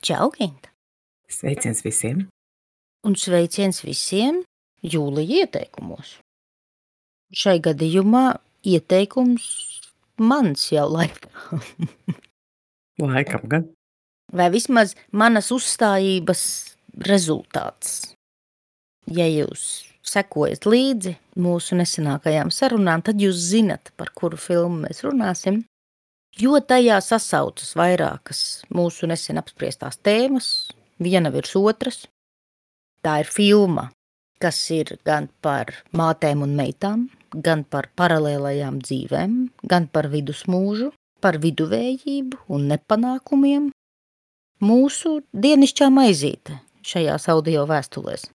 Čau, Ginta! Sveiciens visiem! Un sveiciens visiem Jūlija ieteikumos. Šai gadījumā ieteikums mans jau laikam. Laikam gan. Vai vismaz manas uzstājības rezultāts. Ja jūs sekojat līdzi mūsu nesenākajām sarunām, tad jūs zinat, par kuru filmu mēs runāsim, jo tajā sasaucas vairākas mūsu nesen apspriestās tēmas, viena virs otras. Tā ir filma, kas ir gan par mātēm un meitām, gan par paralēlajām dzīvēm, gan par vidusmūžu, par viduvējību un nepanākumiem. Mūsu dienišķā maizīte šajās audio vēstulēs.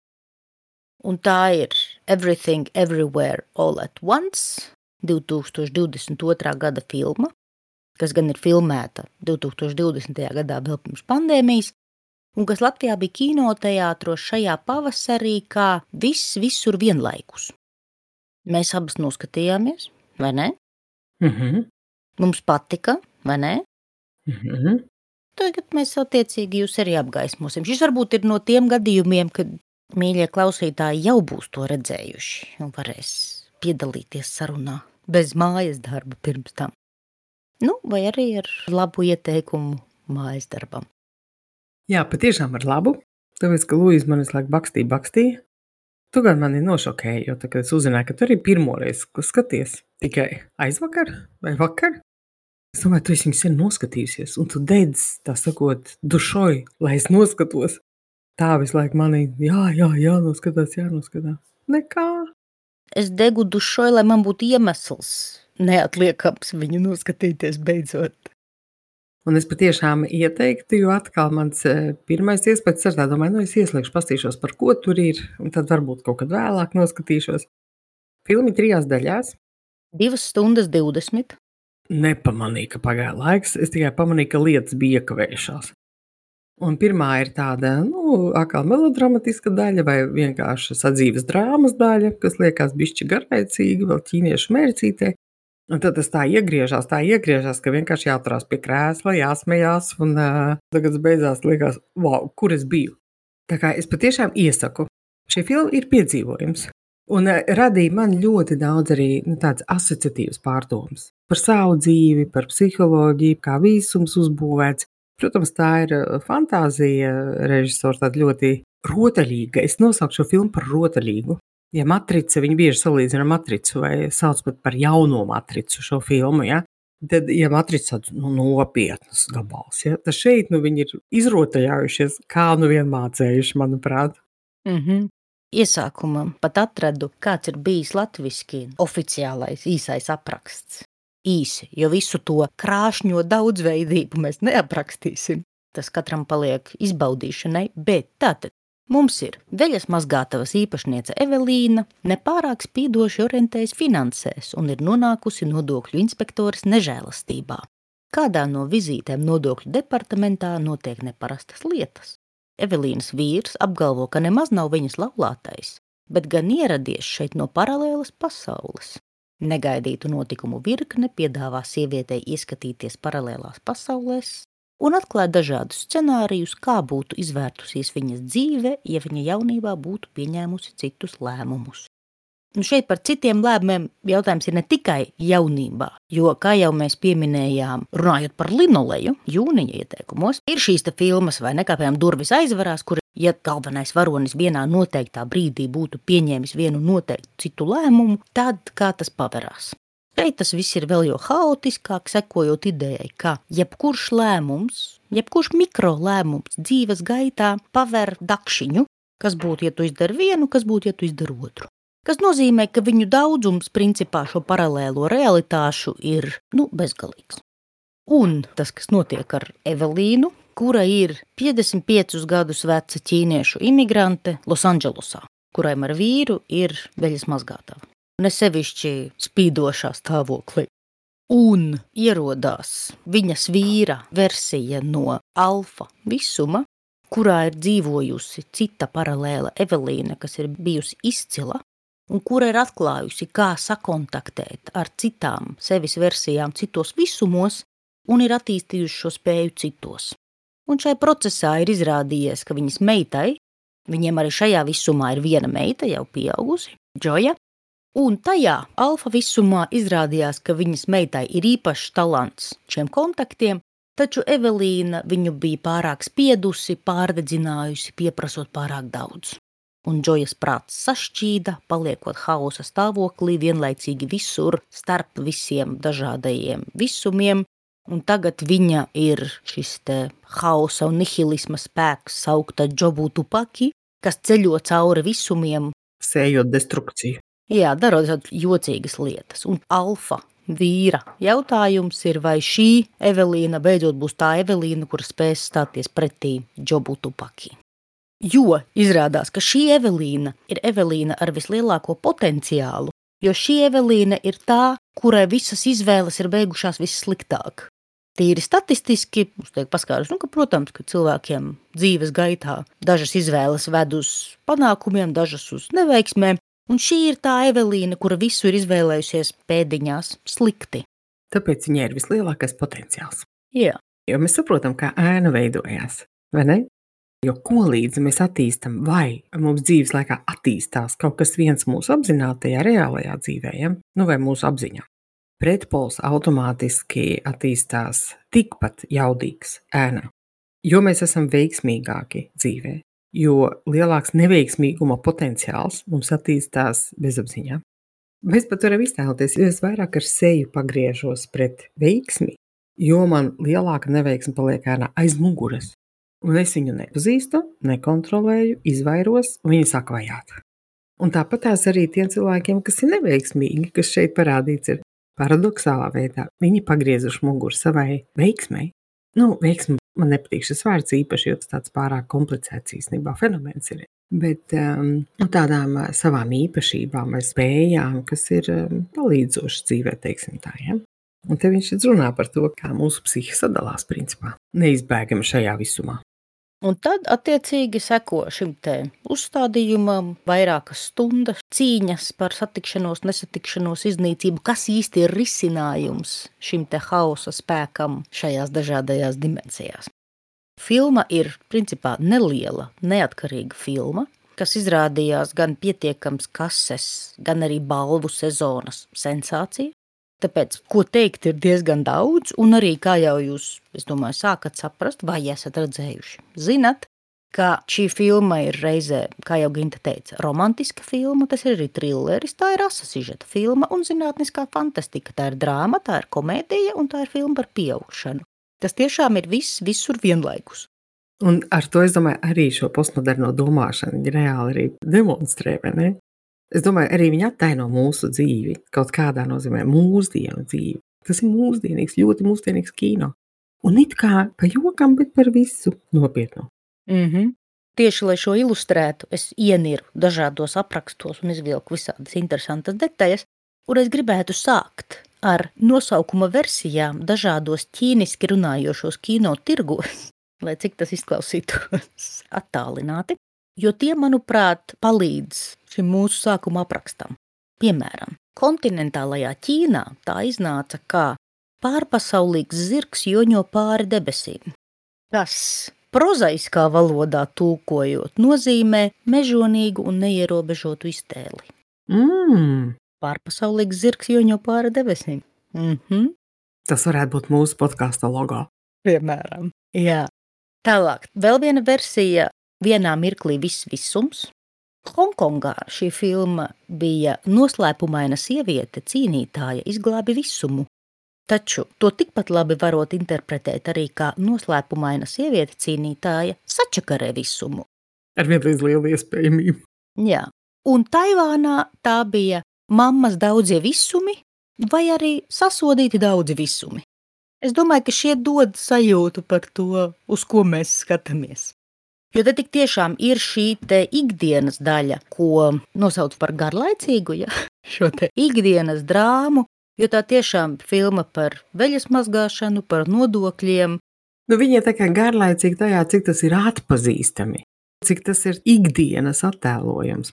Un tā ir Everything Everywhere All at Once, 2022. gada filma, kas gan ir filmēta 2020. gadā vēl pirms pandēmijas, un kas Latvijā bija kinoteātros šajā pavasarī kā viss visur vienlaikus. Mēs abas noskatījāmies, vai ne? Mums patika, vai ne? Tagad mēs attiecīgi jūs arī apgaismosim. Šis varbūt ir no tiem gadījumiem, kad mīļie klausītāji jau būs to redzējuši un varēs piedalīties sarunā bez mājas darba pirms tam. Vai arī ar labu ieteikumu mājas darbam. Jā, patiešām ar labu. Tāpēc, ka Lūija man visu laiku bakstīja. Tu gan mani nošokēji, jo tā, kad es uzzināju, ka tu arī pirmoreiz skaties tikai aizvakar vai vakar. Es domāju, tu esi viņu sen noskatījusies, un tu dedz, tā sakot, dušoji, lai es noskatos. Tā visu laiku manī, jānoskatās. Nekā. Es degu dušoju, lai man būtu iemesls neatliekams viņu noskatīties beidzot. Un es patiešām ieteiktu, jo atkal mans pirmais iespējas ar tā domāju, es ieslēgšu, pastīšos, par ko tur ir, un tad varbūt kaut kad vēlāk noskatīšos. Filmi 3 daļās. 2 stundas 20. Nepamanīju, ka pagāja laiks, es tikai pamanīju, ka lietas bija iekavējušās. Un pirmā ir tāda, atkal melodramatiska daļa vai vienkārši sadzīves drāmas daļa, kas liekas bišķi garlaicīga, vēl ķīniešu mērcītē. Un tad tas tā iegriežās, ka vienkārši jāturās pie krēsla, jāsmejās, un tagad beidzās liekas, wow, kur es biju. Tā kā es patiešām iesaku. Šie filmi ir piedzīvojums. Un radīja man ļoti daudz arī tāds asociatīvs pārdomas par savu dzīvi, par psiholoģiju, kā visums uzbūvēts. Protams, tā ir fantāzija režisors, tāda ļoti rotaļīga. Es nosaukšu šo filmu par rotaļīgu. Ja Matrica, viņi bieži salīdzina Matricu vai sauc pat par jauno Matricu šo filmu, ja? Tad, ja Matrica tāds nopietnas gabals, ja? Tad šeit viņi ir izrotaļājušies, kā vien mācējuši, manuprāt. Iesākumam pat atradu, kāds ir bijis latviski oficiālais īsais apraksts. Īsi, jo visu to krāšņo daudzveidību mēs neaprakstīsim. Tas katram paliek izbaudīšanai, bet tātad mums ir veļas mazgātavas īpašniece Evelīna, nepārāk spīdoši orientējas finansēs un ir nonākusi nodokļu inspektoras nežēlastībā. Kādā no vizītēm nodokļu departamentā notiek neparastas lietas. Evelīnas vīrs apgalvo, ka nemaz nav viņas laulātais, bet gan ieradies šeit no paralēlas pasaules. Negaidītu notikumu virkne piedāvā sievietei ieskatīties paralēlās pasaulēs un atklāt dažādus scenārijus, kā būtu izvērtusies viņas dzīve, ja viņa jaunībā būtu pieņēmusi citus lēmumus. Šeit par citiem lēmumiem jautājums ir ne tikai jaunībā, jo, kā jau mēs pieminējām, runājot par linoleju, jūnija ieteikumos, ir šīs te filmas vai nekāpējām durvis aizvarās, kur, ja galvenais varonis vienā noteiktā brīdī būtu pieņēmis vienu noteiktu citu lēmumu, tad kā tas paverās. Šeit tas viss ir vēl jo haotiskāk, sekojot idejai, ka jebkurš lēmums, jebkurš mikrolēmums dzīves gaitā paver dakšiņu, kas būtu, ja tu izdari vienu, kas būtu, ja tu izdari otru. Kas nozīmē, ka viņu daudzums principā šo paralēlo realitāšu ir, bezgalīgs. Un tas, kas notiek ar Evelīnu, kura ir 55 gadus veca ķīniešu imigrante Losandželosā, kurai ar vīru ir veļas mazgātava. Nesevišķi spīdošā stāvoklī. Un ierodās viņas vīra versija no alfa visuma, kurā ir dzīvojusi cita paralēla Evelīna, kas ir bijusi izcila, un kura ir atklājusi, kā sakontaktēt ar citām sevis versijām citos visumos un ir attīstījuši šo spēju citos. un šai procesā ir izrādījies, ka viņas meitai, viņiem arī šajā visumā ir viena meita jau pieaugusi, Džoja, un tajā alfa visumā izrādījās, ka viņas meitai ir īpašs talants šiem kontaktiem, taču Evelīna viņu bija pārāk spiedusi, pārdedzinājusi, pieprasot pārāk daudz. Un Džojas prāts sašķīda, paliekot hausa stāvoklī vienlaicīgi visur starp visiem dažādajiem visumiem, un tagad viņa ir šis te hausa un nihilisma spēks saukta Džobu Tupaki, kas ceļo cauri visumiem. Sējot destrukciju. Jā, darot jocīgas lietas. Un alfa vīra jautājums ir, vai šī Evelīna beidzot būs tā Evelīna, kur spēs stāties pretī Džobu Tupaki. Jo izrādās, ka šī Evelīna ir Evelīna ar vislielāko potenciālu, jo šī Evelīna ir tā, kurai visas izvēles ir beigušās vissliktāk. Tīri statistiski, mums tiek paskaidrots, ka, protams, ka cilvēkiem dzīves gaitā dažas izvēles ved uz panākumiem, dažas uz neveiksmēm, un šī ir tā Evelīna, kura visu ir izvēlējusies pēdiņās slikti. Tāpēc viņai ir vislielākais potenciāls. Jā. Jo mēs saprotam, kā ēna veidojās, vai ne? Jo ko līdzi mēs attīstam, vai mums dzīves laikā attīstās kaut kas viens mūsu apzinātajā, reālajā dzīvē, ja? Vai mūsu apziņā. Pretpols automātiski attīstās tikpat jaudīgs ēnā, jo mēs esam veiksmīgāki dzīvē, jo lielāks neveiksmīguma potenciāls mums attīstās bezapziņā. Mēs pat varam iztēloties, jo es vairāk ar seju pagriežos pret veiksmi, jo man lielāka neveiksme paliek ēnā aiz muguras. Un es viņu nepazīstu, nekontrolēju, izvairos, un viņi sāk vajāt. Un tāpat tās arī tiem cilvēkiem, kas ir neveiksmīgi, kas šeit parādīts ir paradoxālā veidā. Viņi pagriezuši muguru savai veiksmei. Veiksmi man nepatīk šis vārds īpaši, jo tas tāds pārāk komplicēts īstenībā fenomens ir. Bet tādām savām īpašībām vai spējām, kas ir palīdzošas dzīvē, teiksim tā, ja? Un te viņš runā par to, kā mūsu psihe sadalās principā, neizbēgami šajā visumā. Un tad, attiecīgi, seko šim te uzstādījumam vairākas stundas cīņas par satikšanos, nesatikšanos, iznīcību, kas īsti ir risinājums šim te hausa spēkam šajās dažādajās dimensijās. Filma ir, principā, neliela, neatkarīga filma, kas izrādījās gan pietiekams kases, gan arī balvu sezonas sensācija. Tāpēc, ko teikt, ir diezgan daudz, un arī, kā jau jūs, es domāju, sākat saprast, vai esat redzējuši, zinat, ka šī filma ir reizē, kā jau Ginta teica, romantiska filma, tas ir arī trilleris, tā ir asa sižeta filma un zinātniskā fantastika, tā ir drāma, tā ir komēdija un tā ir filma par pieaugšanu. Tas tiešām ir viss, visur vienlaikus. Un ar to, es domāju, arī šo postmoderno domāšanu viņi reāli arī demonstrē, vai ne? Es domāju, arī viņi attaino mūsu dzīvi, kaut kādā nozīmē mūsdienu dzīvi. Tas ir mūsdienīgs, ļoti mūsdienīgs kino. Un it kā pa jokam, bet par visu nopietnu. Tieši, lai šo ilustrētu, es ieniru dažādos aprakstos un izvilku visādas interesantas detaļas, un es gribētu sākt ar nosaukuma versijām dažādos ķīniski runājošos kino tirgos, lai cik tas izklausītos attālināti. Jo tie, manuprāt, palīdz šim mūsu sākuma aprakstam. Piemēram, kontinentālajā Ķīnā tā iznāca kā pārpasaulīgs zirgs joņo pāri debesīm. Tas prozaiskā valodā tulkojot nozīmē mežonīgu un neierobežotu iztēli. Pārpasaulīgs zirgs joņo pāri debesīm. Tas varētu būt mūsu podkāsta logo. Piemēram, jā. Tālāk, vēl viena versija. Vienā mirklī viss visums. Hongkongā šī filma bija noslēpumaina sieviete, cīnītāja, izglābi visumu. Taču to tikpat labi varot interpretēt arī kā noslēpumaina sieviete, cīnītāja, sačakarē visumu. Ar vienlīdz lielu iespējamību. Jā. Un Taivānā tā bija mammas daudzie visumi vai arī sasodīti daudzi visumi. Es domāju, ka šie dod sajūtu par to, uz ko mēs skatāmies. Jo te tik tiešām ir šī te ikdienas daļa, ko nosauc par garlaicīgu, ja? Šo te ikdienas drāmu, jo tā tiešām filma par veļas mazgāšanu, par nodokļiem. Viņa ir tā kā garlaicīga tajā, cik tas ir atpazīstami, cik tas ir ikdienas attēlojams.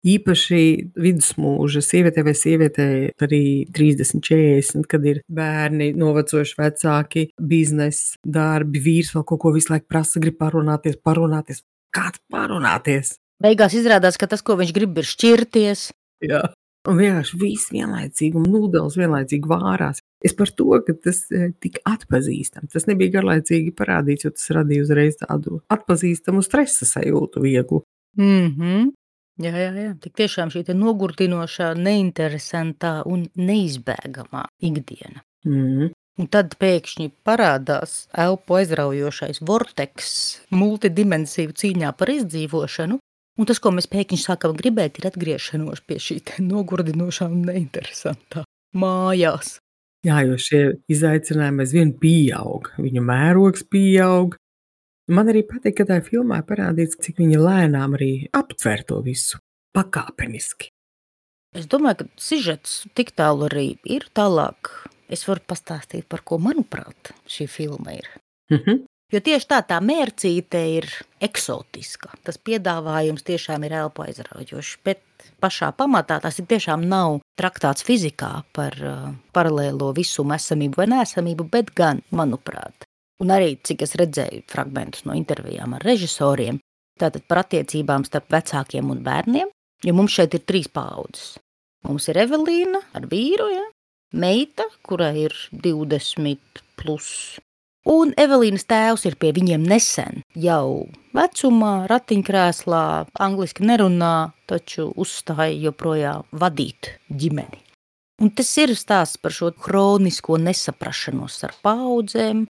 īpaši vidusmūža sievietē vai sievietei arī 30, 40, kad ir bērni, novecojuši vecāki, bizness, darbi, vīrs vēl kaut ko visu laiku prasa, grib parunāties. Kāds parunāties? Beigās izrādās, ka tas, ko viņš grib, ir šķirties. Jā. Un vienkārši viss vienlaicīgi, un nūdeles vienlaicīgi vārās. Es par to, ka tas tik atpazīstams. Tas nebija garlaicīgi parādīts, jo tas radīja uzreiz tādu atpazīstamu stresa sajūtu vieglu. Jā. Tik tiešām šī te nogurdinošā, neinteresantā un neizbēgamā ikdiena. Un tad pēkšņi parādās elpu aizraujošais vorteks multidimensiju cīņā par izdzīvošanu, un tas, ko mēs pēkšņi sākam gribēt, ir atgriešanos pie šī te nogurdinošā un neinteresantā mājās. Jā, jo šie izaicinājumi aizvien pieaug, viņu mērogs pieaug. Man arī patīk, ka tā filmā parādīts, cik viņa lēnām arī aptver to visu pakāpeniski. Es domāju, ka sižets tik tālu arī ir tālāk. Es varu pastāstīt, par ko, manuprāt, šī filma ir. Jo tieši tā mērcīte ir eksotiska. Tas piedāvājums tiešām ir elpu aizraujošs, bet pašā pamatā tas ir tiešām nav traktāts fizikā par paralēlo visumu esamību vai neesamību, bet gan, manuprāt. Un arī, cik es redzēju fragmentus no intervijām ar režisoriem, tātad par attiecībām starp vecākiem un bērniem, jo mums šeit ir 3 paaudzes. Mums ir Evelīna ar vīru, ja? Meita, kurai ir 20 plus. Un Evelīnas tēvs ir pie viņiem nesen, jau vecumā, ratiņkrēslā, angliski nerunā, taču uzstāja joprojām vadīt ģimeni. Un tas ir stāsts par šo kronisko nesaprašanos ar paaudzēm,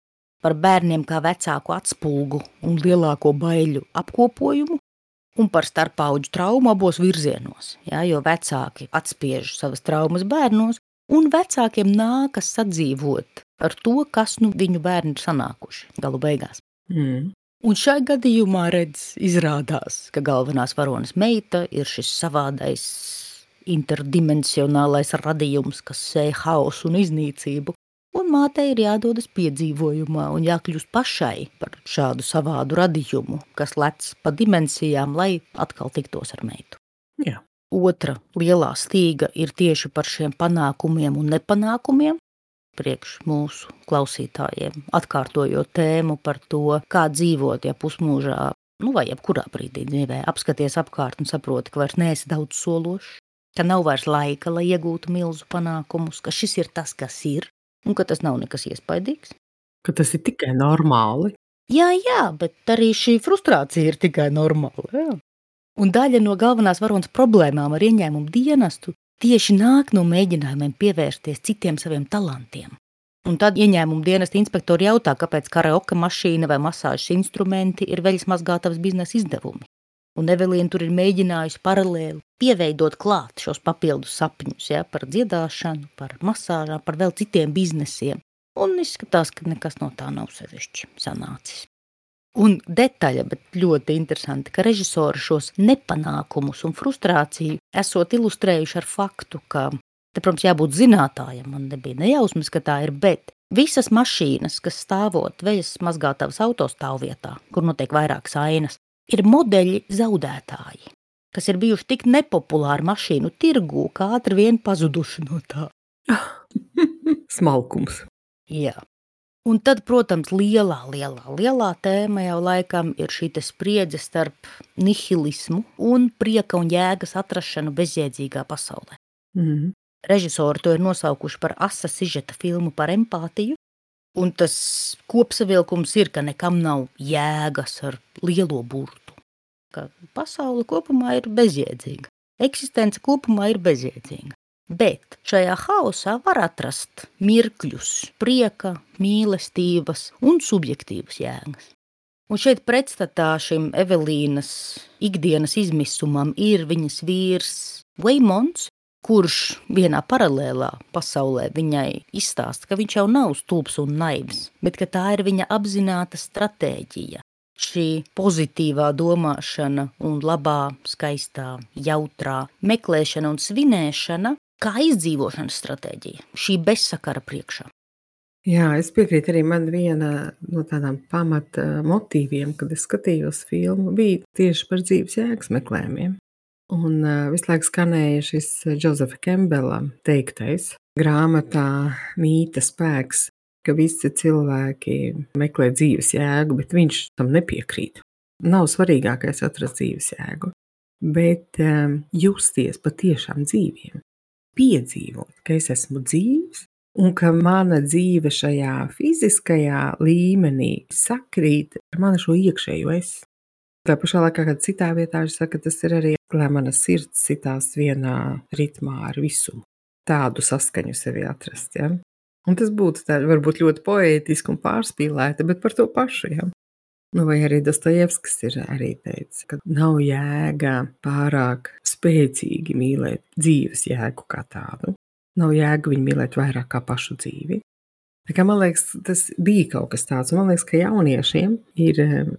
par bērniem kā vecāku atspulgu un lielāko baiļu apkopojumu, un par starpaudžu traumu abos virzienos, ja, jo vecāki atspiež savas traumas bērnos, un vecākiem nākas sadzīvot ar to, kas viņu bērni ir sanākuši galu beigās. Un šai gadījumā izrādās, ka galvenās varonas meita ir šis savādais interdimensionālais radījums, kas sēja haosu un iznīcību, un mātei ir jādodas piedzīvojumā un jākļūst pašai par šādu savādu radījumu, kas lec pa dimensijām, lai atkal tiktos ar meitu. Jā. Otra lielā stīga ir tieši par šiem panākumiem un nepanākumiem, priekš mūsu klausītājiem, atkārtojot tēmu par to, kā dzīvot, ja pusmūžā, vai jebkurā brīdī dzīvē, apskaties apkārt un saproti, ka vairs neesi daudz sološs, ka nav vairs laika, lai iegūtu milzu panākumus, ka šis ir tas, kas ir, un ka tas nav nekas iespaidīgs. Ka tas ir tikai normāli. Jā, bet arī šī frustrācija ir tikai normāla, jā. Un daļa no galvenās varonas problēmām ar ieņēmumu dienestu tieši nāk no mēģinājumiem pievērsties citiem saviem talantiem. Un tad ieņēmumu dienesta inspektori jautā, kāpēc karaoke mašīna vai masāžas instrumenti ir veļas mazgātavas biznesa izdevumi. Un Evelīna tur ir mēģinājusi paralēli pieveidot klāt šos papildus sapņus, ja, par dziedāšanu, par masāžām, par vēl citiem biznesiem. Un izskatās, ka nekas no tā nav sevišķi sanācis. Un detaļa, bet ļoti interesanti, ka režisori šos nepanākumus un frustrāciju esot ilustrējuši ar faktu, ka, te, protams, jābūt zinātājam, man nebija nejausmas, ka tā ir, bet visas mašīnas, kas stāvot veļas mazgātavas autostāvvietā, kur notiek vairākas ainas, ir modeļi zaudētāji, kas ir bijuši tik nepopulāri mašīnu tirgū, kā ātri vien pazuduši no tā. Smalkums. Jā. Un tad, protams, lielā tēma jau laikam ir šī spriedze starp nihilismu un prieka un jēgas atrašanu bezjēdzīgā pasaulē. Režisori to ir nosaukuši par asa sižeta filmu par empātiju, un tas kopsavilkums ir, ka nekam nav jēgas ar lielo burtu. Ka pasaule kopumā ir bezjēdzīga, eksistence kopumā ir bezjēdzīga. Bet šajā haosā var atrast mirkļus, prieka, mīlestības un subjektīvas jēgas. Un šeit pretstatā šim Evelīnas ikdienas izmisumam ir viņas vīrs Veimons, kurš vienā paralēlā pasaulē viņai izstāsta, ka viņš jau nav stulbs un naivs, bet ka tā ir viņa apzināta stratēģija. Šī pozitīvā domāšana un labā, skaistā, jautrā meklēšana un svinēšana kā izdzīvošanas stratēģija, šī bezsakara priekšā. Jā, es piekrītu arī, man viena no tādām pamata motīviem, kad es skatījos filmu, bija tieši par dzīves jēgas meklējumiem. Un visu laiku skanēja šis Josefa Kembela teiktais grāmatā Mīta spēks, ka visi cilvēki meklē dzīves jēgu, bet viņš tam nepiekrīt. Nav svarīgākais atrast dzīves jēgu, bet justies patiešām dzīviem, piedzīvot, ka es esmu dzīvs un ka mana dzīve šajā fiziskajā līmenī sakrīt ar manu šo iekšējo es. Tā pašā laikā, kad citā vietā viņš saka, tas ir arī, lai mana sirds sitās vienā ritmā ar visumu. Tādu saskaņu sevi atrast, ja? Un tas būtu tā, varbūt ļoti poētiski un pārspīlēti, bet par to pašu, ja? Nu, vai arī Dostojevskis ir arī teicis, ka nav jēga pārāk spēcīgi mīlēt dzīves jēgu kā tādu. Nav jēga viņu mīlēt vairāk kā pašu dzīvi. Tā kā, man liekas, tas bija kaut kas tāds, un man liekas, ka jauniešiem ir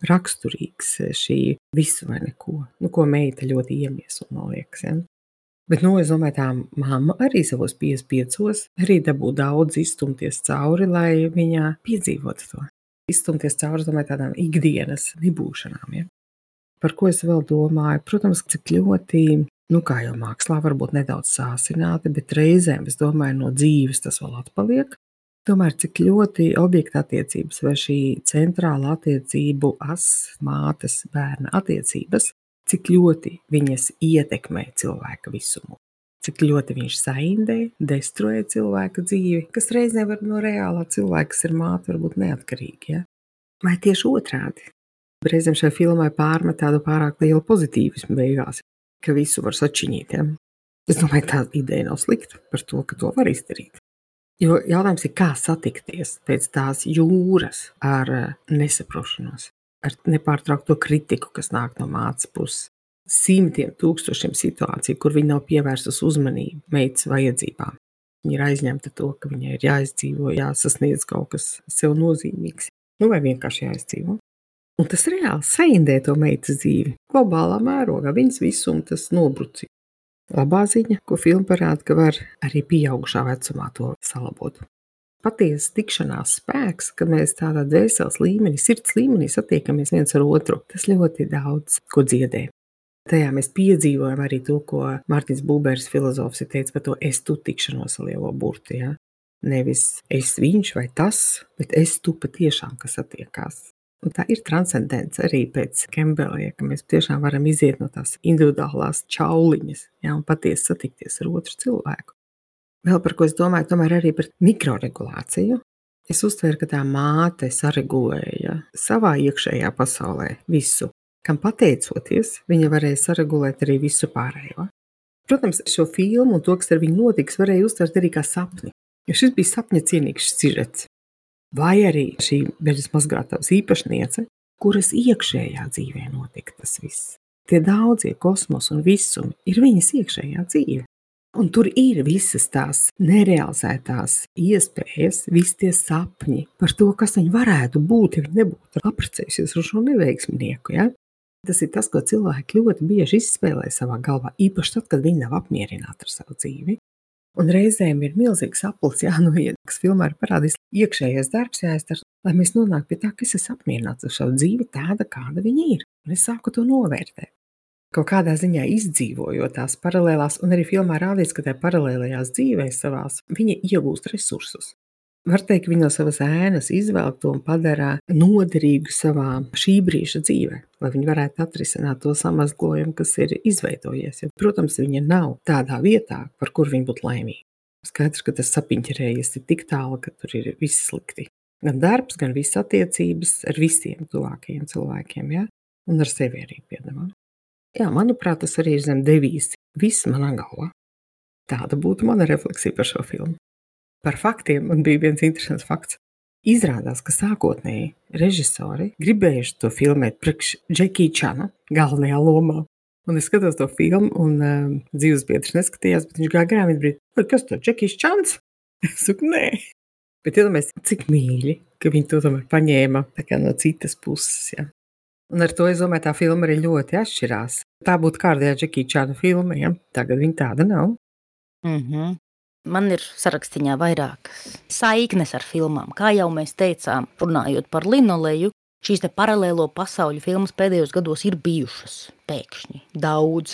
raksturīgs šī visu vai neko, nu, ko meita ļoti iemieso, man liekas, ja? Bet, nu, es domāju, tā mamma arī savos 55 arī dabū daudz izstumties cauri, lai viņa piedzīvotu to. Izstumties cauri, domāju, tādām ikdienas nebūšanām, ja? Par ko es vēl domāju? Protams, cik ļoti, nu, kā jau mākslā, varbūt nedaudz sāsināti, bet reizēm, es domāju, no dzīves tas vēl atpaliek. Tomēr cik ļoti objekta attiecības vai šī centrāla attiecību as, mātes, bērna attiecības, cik ļoti viņas ietekmē cilvēka visumu, cik ļoti viņš saindē, destruē cilvēka dzīvi, kas reizē var no reālā cilvēka, kas ir māte, varbūt neatkarīgi, ja? Vai tieši otrādi? Reizēm šai filmai pārmet tādu pārāk lielu pozitīvismu beigās, ka visu var sačiņīt, ja? Es domāju, tā ideja nav slikta par to, ka to var izdarīt. Jo jautājums ir, kā satikties pēc tās jūras ar nesaprošanos, ar nepārtraukto kritiku, kas nāk no mātes puses, simtiem tūkstošiem situāciju, kur viņa nav pievērsus uzmanību meitas vajadzībām. Viņa ir aizņemta to, ka viņai ir jāizdzīvo, jāsasniedz kaut kas sev nozīmīgs, nu vai vienkārši jāizdzīvo. Un tas reāli saindē to meitas dzīvi, globālā mērogā, viņas visum tas nobruci. Labā ziņa, ko filma parāda, ka var arī pieaugušā vecumā to salabot. Patiesa tikšanās spēks, ka mēs tādā dvēseles līmenī, sirds līmenī satiekamies viens ar otru, tas ļoti daudz ko dziedē. Tajā mēs piedzīvojam arī to, ko Mārtiņš Buberis filozofs ir teicis par to es tu tikšanos ar lielo burtu. Ja? Nevis es viņš vai tas, bet es tu patiešām, kas satiekās. Un tā ir transcendence arī pēc Kembela, ja, ka mēs tiešām varam iziet no tās individuālās čauliņas, ja, un patiesi satikties ar otru cilvēku. Vēl par ko es domāju, tomēr arī par mikroregulāciju. Es uztveru, ka tā māte saregulēja savā iekšējā pasaulē visu, kam pateicoties, viņa varēja saregulēt arī visu pārējo. Protams, šo filmu un to, kas ar viņu notiks, varēja uztvert arī kā sapni, jo šis bija sapņa cienīgs sižets. Vai arī šī beļas mazgātavas īpašniece, kuras iekšējā dzīvē notika tas viss. Tie daudzie kosmos un visumi ir viņas iekšējā dzīve. Un tur ir visas tās nerealizētās iespējas, visi tie sapņi par to, kas viņi varētu būt, ja viņi nebūtu apprecējušies ar šo neveiksminieku. Ja? Tas ir tas, ko cilvēki ļoti bieži izspēlē savā galvā, īpaši tad, kad viņi nav apmierināti ar savu dzīvi. Un reizēm ir milzīgs aplis jānoiet, kas filmā ir parādījis iekšējais darbs jāizdara, lai mēs nonāktu pie tā, ka es esmu apmierināts ar savu dzīvi tāda, kāda viņa ir. Un es sāku to novērtēt. Kaut kādā ziņā izdzīvojot tās paralēlās, un arī filmā rādīts, ka tajā paralēlajās dzīvēs savās viņa iegūst resursus. Var teikt, ka viņa no savas ēnas izvelk to un padara noderīgu savā šī brīža dzīvē, lai viņi varētu atrisināt to samazglojumu, kas ir izveidojies. Jo, protams, viņa nav tādā vietā, par kur viņa būtu laimīga. Skaidrs, ka tas sapiņķerējies ir tik tālu, ka tur ir viss slikti. Gan darbs, gan visas attiecības ar visiem tuvākajiem cilvēkiem, ja? Un ar sevi arī piedamā. Jā, manuprāt, tas arī ir zem devīzi. Viss manā galvā. Tāda būtu mana refleksija par šo filmu. Par faktiem man bija viens interesants fakts. Izrādās, ka sākotnēji režisori gribējuši to filmēt priekš Džekija Čana galvenajā lomā. Un es skatos to filmu, un dzīves biedrs neskatījās, bet viņš gāja garām un brīd, kas to Džekijs Čans? Es saku, nē. Bet iedomājies, cik mīļi, ka viņi to tomēr paņēma tā kā no citas puses. Ja. Un ar to, es domāju, tā filma arī ļoti atšķirās. Tā būtu kārtējā Džekija Čana filma, ja? Tagad viņa tāda nav. Man ir sarakstiņā vairākas saiknes ar filmām. Kā jau mēs teicām, runājot par linoleju, šīs te paralēlo pasauļu filmas pēdējos gados ir bijušas pēkšņi daudz.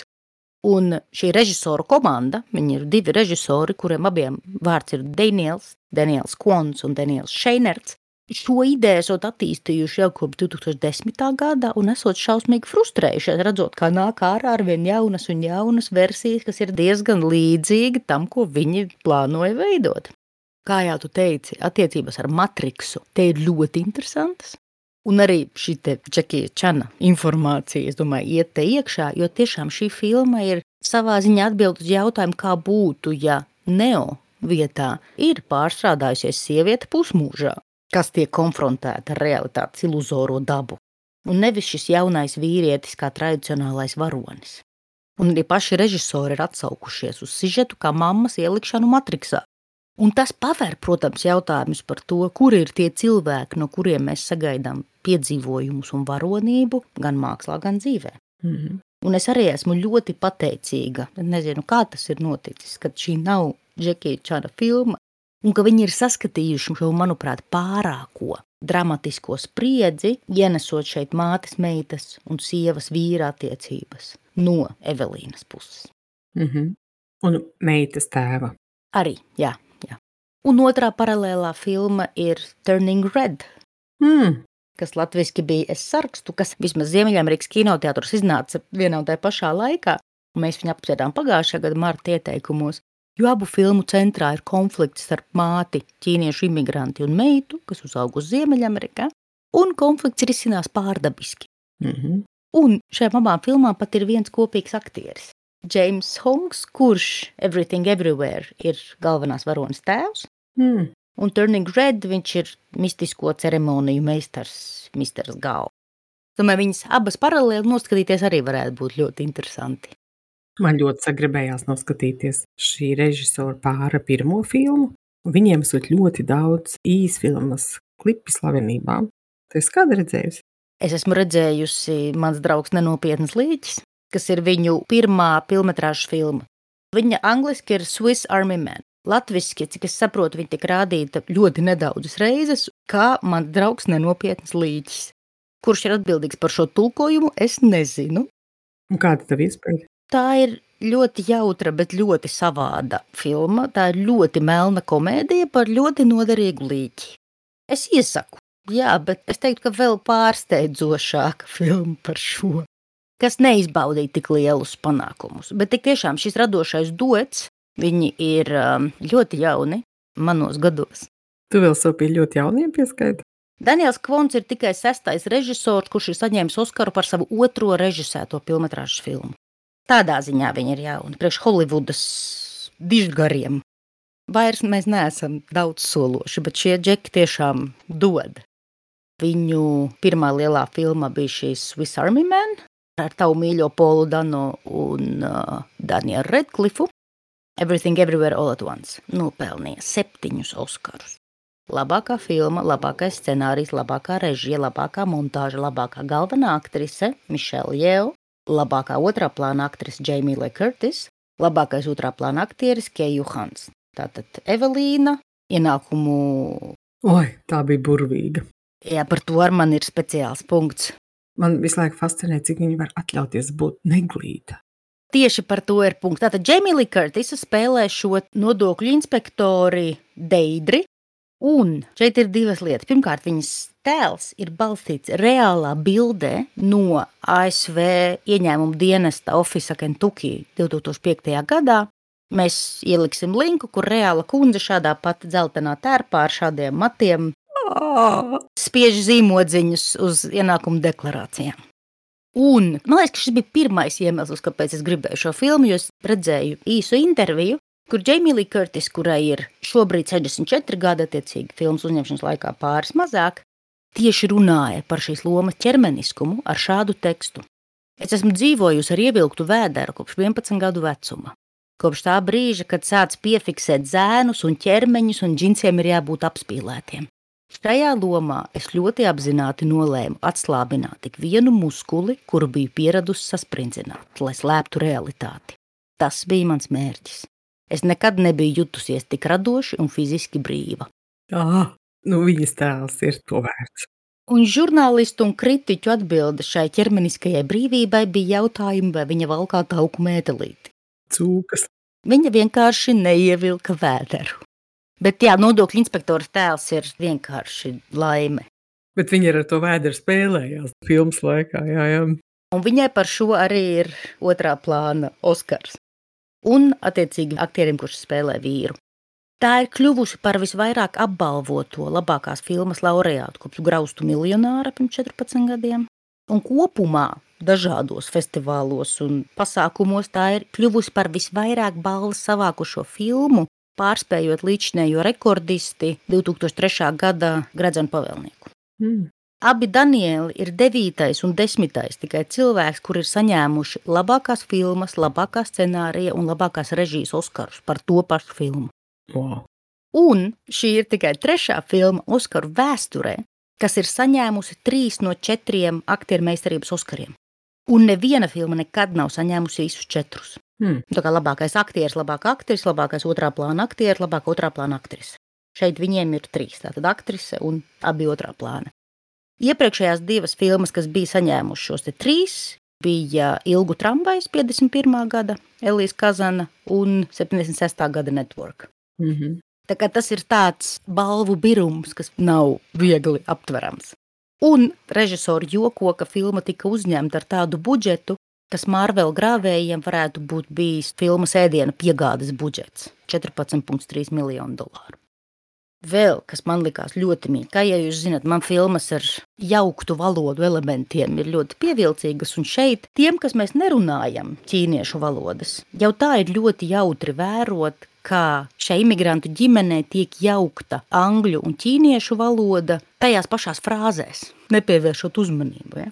Un šī režisoru komanda, viņi ir 2 režisori, kuriem abiem vārds ir Daniels Kvons un Daniels Šeinerts, šo ideju esot attīstījuši jau kopš 2010. Gada un esot šausmīgi frustrējušies, redzot, kā nāk ārā arvien jaunas un jaunas versijas, kas ir diezgan līdzīgi tam, ko viņi plānoja veidot. Kā jau tu teici, attiecības ar Matriksu te ir ļoti interesantas. Un arī šī te Džekija Čana informācija, es domāju, iet te iekšā, jo tiešām šī filma ir savā ziņā atbild uz jautājumu, kā būtu, ja Neo vietā ir pārstrādājusies sieviete pusmūžā, kas tiek konfrontēta ar realitātes iluzoro dabu, un nevis šis jaunais vīrietis kā tradicionālais varonis. Un arī paši režisori ir atsaukušies uz sižetu kā mammas ielikšanu Matriksā. Un tas paver, protams, jautājumus par to, kur ir tie cilvēki, no kuriem mēs sagaidām piedzīvojumus un varonību gan mākslā, gan dzīvē. Un es arī esmu ļoti pateicīga, nezinu, kā tas ir noticis, kad šī nav Džekija Čana filma, un ka viņi ir saskatījuši šo, manuprāt, pārāko dramatisko spriedzi, ienesot šeit mātes, meitas un sievas vīra attiecības no Evelīnas puses. Un meitas tēva. Arī, jā. Un otrā paralēlā filma ir Turning Red, kas latviski bija Es sarkstu, kas vismaz Ziemeļamerikas kinoteātros iznāca vienā un tajā pašā laikā. Mēs viņu apspriedām pagājušā gada marta ieteikumos, jo abu filmu centrā ir konflikts starp māti, ķīniešu imigranti un meitu, kas uzauga uz Ziemeļamerikā, un konflikts risinās pārdabiski. Un šajām abām filmām pat ir viens kopīgs aktieris. James Hongs, kurš Everything Everywhere ir galvenās varonas tēvs, un Turning Red viņš ir mistisko ceremoniju meistars Misters Gao. Tomēr viņas abas paralēli noskatīties arī varētu būt ļoti interesanti. Man ļoti sagribējās noskatīties šī režisora pāra pirmo filmu, un viņiem esot ļoti daudz īsfilmas klipi slavenībām. Tu esi kādu redzējusi? Es esmu redzējusi Mans draugs nenopietnas līķis, kas ir viņu pirmā filmetrāžas filma. Viņa angliski ir Swiss Army Man. Latviski, cik es saprotu, viņa tiek rādīta ļoti nedaudzas reizes, kā Mans draugs nenopietnas līķis. Kurš ir atbildīgs par šo tulkojumu, es nezinu. Un kāda tev iespēja? Tā ir ļoti jautra, bet ļoti savāda filma. Tā ir ļoti melna komēdija par ļoti noderīgu līķi. Es iesaku, jā, bet es teiktu, ka vēl pārsteidzošāka filma par šo, kas neizbaudīja tik lielus panākumus. Bet tik tiešām šis radošais duets, viņi ir ļoti jauni manos gados. Tu vēl sev pie ļoti jauniem pieskaiti? Daniels Kvons ir tikai 6. režisors, kurš ir saņēmis Oskaru par savu otro režisēto filmetrāžas filmu. Tādā ziņā viņi ir jauni, priekš Holivudas dižgariem. Vairs mēs neesam daudz sološi, bet šie džeki tiešām dod. Viņu pirmā lielā filma bija šīs Swiss Army Man, ar tavu mīļo Polu Dano un Danielu Redcliffu. Everything Everywhere All at Once nopelnīja 7 Oskarus. Labākā filma, labākais scenārijs, labākā režija, labākā montāža, labākā galvenā aktrise Michelle Yeoh, labākā otrā plāna aktrise Jamie Lee Curtis, labākais otrā plāna aktieris Ke Johans. Tātad Evelīna, ienākumu... Oi, tā bija burvīga. Jā, par to ar man ir speciāls punkts. Man visu laiku fascinē, cik viņi var atļauties būt neglīta. Tieši par to ir punkts. Tātad Jamie Lee Curtis spēlē šo nodokļu inspektori Deidri, un šeit ir divas lietas. Pirmkārt, viņas tēls ir balstīts reālā bildē no ASV ieņēmumu dienesta Office Kentucky 2005. gadā. Mēs ieliksim linku, kur reāla kundze šādā pat dzeltenā tērpā ar šādiem matiem spiež zīmodziņus uz ienākumu deklarācijām. Un man liekas, ka šis bija pirmais iemesls, kāpēc es gribēju šo filmu, jo es redzēju īsu interviju, kur Jamie Lee Curtis, kurai ir šobrīd 64 gadi, attiecīgi filmas uzņemšanas laikā pāris mazāk, tieši runāja par šīs lomas ķermeniskumu ar šādu tekstu. Es esmu dzīvojusi ar ievilktu vēderu kopš 11 gadu vecuma. Kopš tā brīža, kad sāc piefiksēt zēnus un ķermeņus un džinsiem ir jābūt apspīlētiem. Šajā lomā es ļoti apzināti nolēmu atslābināt tik vienu muskuli, kuru biju pieradusi sasprindzināt, lai slēptu realitāti. Tas bija mans mērķis. Es nekad nebiju jutusies tik radoši un fiziski brīva. Nu viņas tēls ir to vērts. Un žurnālistu un kritiķu atbilde šai ķermeniskajai brīvībai bija jautājumi, vai viņa valkā tauku mētelīti. Cūkas. Viņa vienkārši neievilka vēderu. Bet jā, nodokļu inspektora tēls ir vienkārši laime. Bet viņi ar to vēderu spēlējās filmas laikā, jā. Un viņai par šo arī ir otrā plāna Oskars. Un, attiecīgi, aktierim, kurš spēlē vīru. Tā ir kļuvusi par visvairāk apbalvoto labākās filmas laureātu kopš Graustu miljonāra pirms 14 gadiem. Un kopumā dažādos festivālos un pasākumos tā ir kļuvusi par visvairāk balvas savākušo filmu, pārspējot līdzinējo rekordisti 2003. Gada Gredzenu pavēlnieku. Abi Danieli ir 9. un 10. tikai cilvēks, kur ir saņēmuši labākās filmas, labākā scenārija un labākās režijas Oskarus par to pašu filmu. Wow. Un šī ir tikai 3. filma Oskaru vēsturē, kas ir saņēmusi 3 no 4 aktieru meistarības Oskariem. Un neviena filma nekad nav saņēmusi visus 4. Tā kā labākais aktieris, labākā aktrise, labākais otrā plāna aktieris, labākā otrā plāna aktrise. Šeit viņiem ir 3, tātad aktrise un abi otrā plāna. Iepriekšējās 2 filmas, kas bija saņēmušas šos 3, bija Ilgu tramvajs 51. gada Elijas Kazana un 76. gada Network. Tā kā tas ir tāds balvu birums, kas nav viegli aptverams. Un režisori joko, ka filma tika uzņemta ar tādu budžetu, kas Marvel grāvējiem varētu būt bijis filmas ēdiena piegādes budžets – $14,3 miljonu. Vēl, kas man likās ļoti mīļi, kā ja jūs zināt, man filmas ar jauktu valodu elementiem ir ļoti pievilcīgas, un šeit tiem, kas mēs nerunājam ķīniešu valodas, jau tā ir ļoti jautri vērot, kā šai imigrantu ģimenē tiek jaukta angļu un ķīniešu valoda tajās pašās frāzēs, nepievēršot uzmanību. Ja?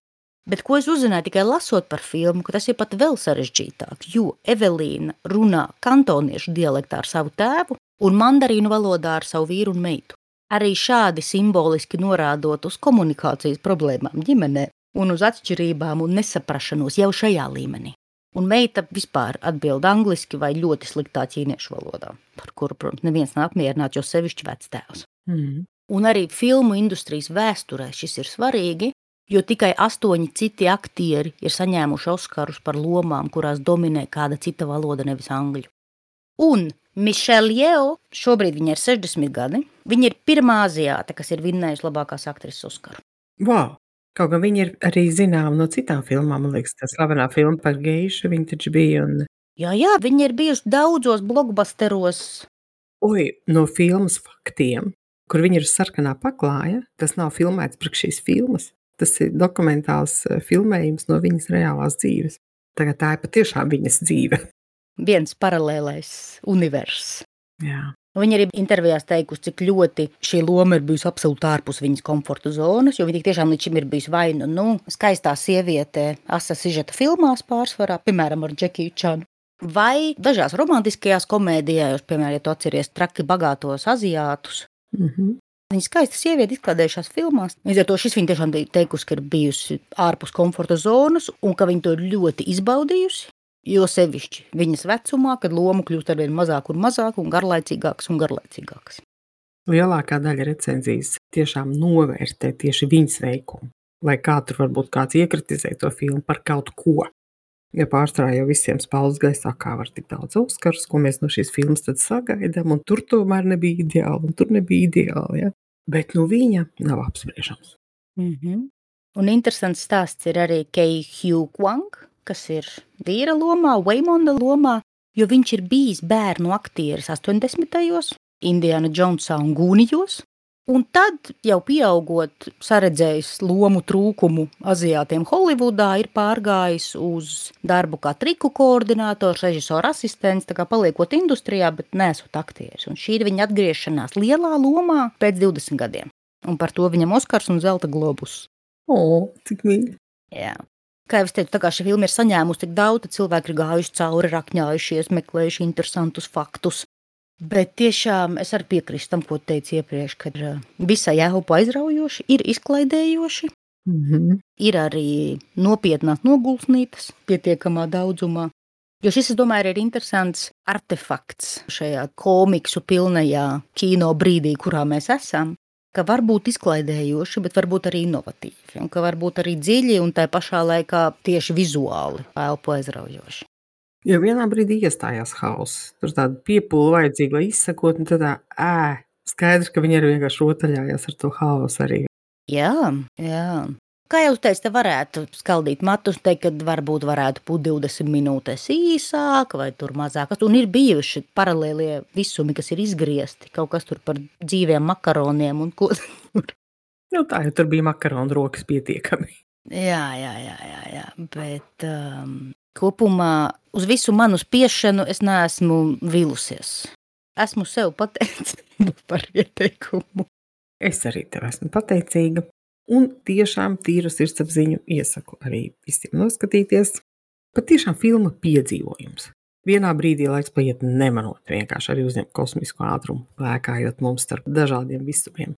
Bet ko es uzzināju tikai lasot par filmu, ka tas ir pat vēl sarežģītāk, jo Evelīna runā kantoniešu dialektā ar savu tēvu un mandarīnu valodā ar savu vīru un meitu. Arī šādi simboliski norādot uz komunikācijas problēmām ģimenē un uz atšķirībām un nesaprašanos jau šajā līmenī. Un meita vispār atbild angliski vai ļoti sliktā ķīniešu valodā, par kuru, protams, neviens nav apmierināts, jo sevišķi vectēvs. Un arī filmu industrijas vēsturē šis ir svarīgi, jo tikai 8 citi aktieri ir saņēmuši Oskarus par lomām, kurās dominē kāda cita valoda, nevis angļu. Un Michelle Yeoh, šobrīd viņa ir 60 gadi, viņa ir pirmā aziāte, kas ir vinnējusi labākās aktrises Oskaru. Wow. Kaut gan viņa ir arī zināma no citām filmām, man liekas, tā slavenā filma par geišu, viņa taču bija un... Jā, viņa ir bijusi daudzos blockbusteros. No filmas Faktiem, kur viņa ir sarkanā paklāja, tas nav filmēts priekš šīs filmas. Tas ir dokumentāls filmējums no viņas reālās dzīves. Tagad tā ir patiešām viņas dzīve. Viens paralēlais universs. Jā. Viņa arī intervijās teikusi, cik ļoti šī loma ir bijusi absolūti ārpus viņas komforta zonas, jo viņa tiešām līdz šim ir bijusi vai skaistā sieviete asa sižeta filmās pārsvarā, piemēram, ar Džekiju Čanu, vai dažās romantiskajās komēdijās, piemēram, ja tu atceries Traki bagātos aziātus. Viņa skaista sieviete izklaidējušās filmās. Līdz ar to šis viņa tiešām teikusi, ka ir bijusi ārpus komforta zonas un ka viņa to ir ļoti izbaudījusi. Jo sevišķi viņas vecumā, kad loma kļūst arvien mazāk un garlaicīgākas. Lielākā daļa recenzijas tiešām novērtē tieši viņas veikumu, lai kā tur varbūt kāds iekritizē to filmu par kaut ko. Ja pārsvarā jau visiem spaudas gaisā, kā var tik daudz Oskarus, ko mēs no šīs filmas tad sagaidām, un tur tomēr nebija ideāli, un tur nebija ideāli, ja? Bet viņa nav apspriežams. Un interesants stāsts ir arī Kei Hugh Kwang, kas ir vīra lomā, Waymonda lomā, jo viņš ir bijis bērnu aktieris 80. Indiana Jonesā un Gūnijos, un tad jau pieaugot saredzējis lomu trūkumu aziātiem Holivudā, ir pārgājis uz darbu kā triku koordinators, režisora asistents, tā kā paliekot industrijā, bet nesot aktieris. Un šī ir viņa atgriešanās lielā lomā pēc 20 gadiem. Un par to viņam Oskars un Zelta globus. Cik mīļi. Jā. Kā jau es teicu, tā kā šī filma ir saņēmusi tik daudz, tad cilvēki ir gājuši cauri, rakņājušies, meklējuši interesantus faktus. Bet tiešām es arī piekrīstu tam, ko teicu iepriekš, ka visai elpu aizraujoši, ir izklaidējoši, ir arī nopietnās nogulsnītas pietiekamā daudzumā. Jo šis, es domāju, ir interesants artefakts šajā komiksu pilnajā kino brīdī, kurā mēs esam. ka var būt izklaidējoši, bet varbūt arī inovatīvi, un ka var būt arī dziļi un tā pašā laikā tieši vizuāli elpu aizraujoši. Jo vienā brīdī iestājās hauss. Tur tāda piepūle vajadzīga, lai izsakot, un tad skaidrs, ka viņi arī vienkārši rotaļājās ar to hausu arī. Jā. Kā jau teicu, te varētu skaldīt matus, teikt, ka varbūt varētu būt 20 minūtes īsāk vai tur mazāk. Un ir bijuši paralēlie visumi, kas ir izgriezti, kaut kas tur par dzīviem makaroniem un ko tur. Nu, tā jau tur bija makaronu rokas pietiekami. Jā, bet kopumā uz visu manu spiešanu es neesmu vilusies. Esmu sev pateicīga par ieteikumu. Es arī tev esmu pateicīga. Un tiešām tīru sirdsapziņu iesaku arī visiem noskatīties. Patiešām filma piedzīvojums. Vienā brīdī laiks paiet nemanot, vienkārši arī uzņemt kosmisko ātrumu, lēkājot mums starp dažādiem visumiem.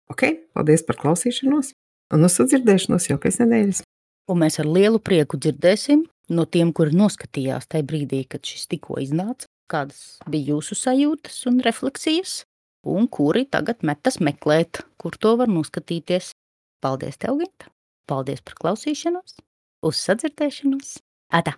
Ok, paldies par klausīšanos, un uz sadzirdēšanos jau pēc nedēļas. Un mēs ar lielu prieku dzirdēsim no tiem, kuri noskatījās tajā brīdī, kad šis tikko iznāca, kādas bija jūsu sajūtas un refleksijas, un kuri tagad metas meklēt, kur to var noskatīties. Paldies tev, Ginta! Paldies par klausīšanos! Uz sadzirdēšanos! Atā!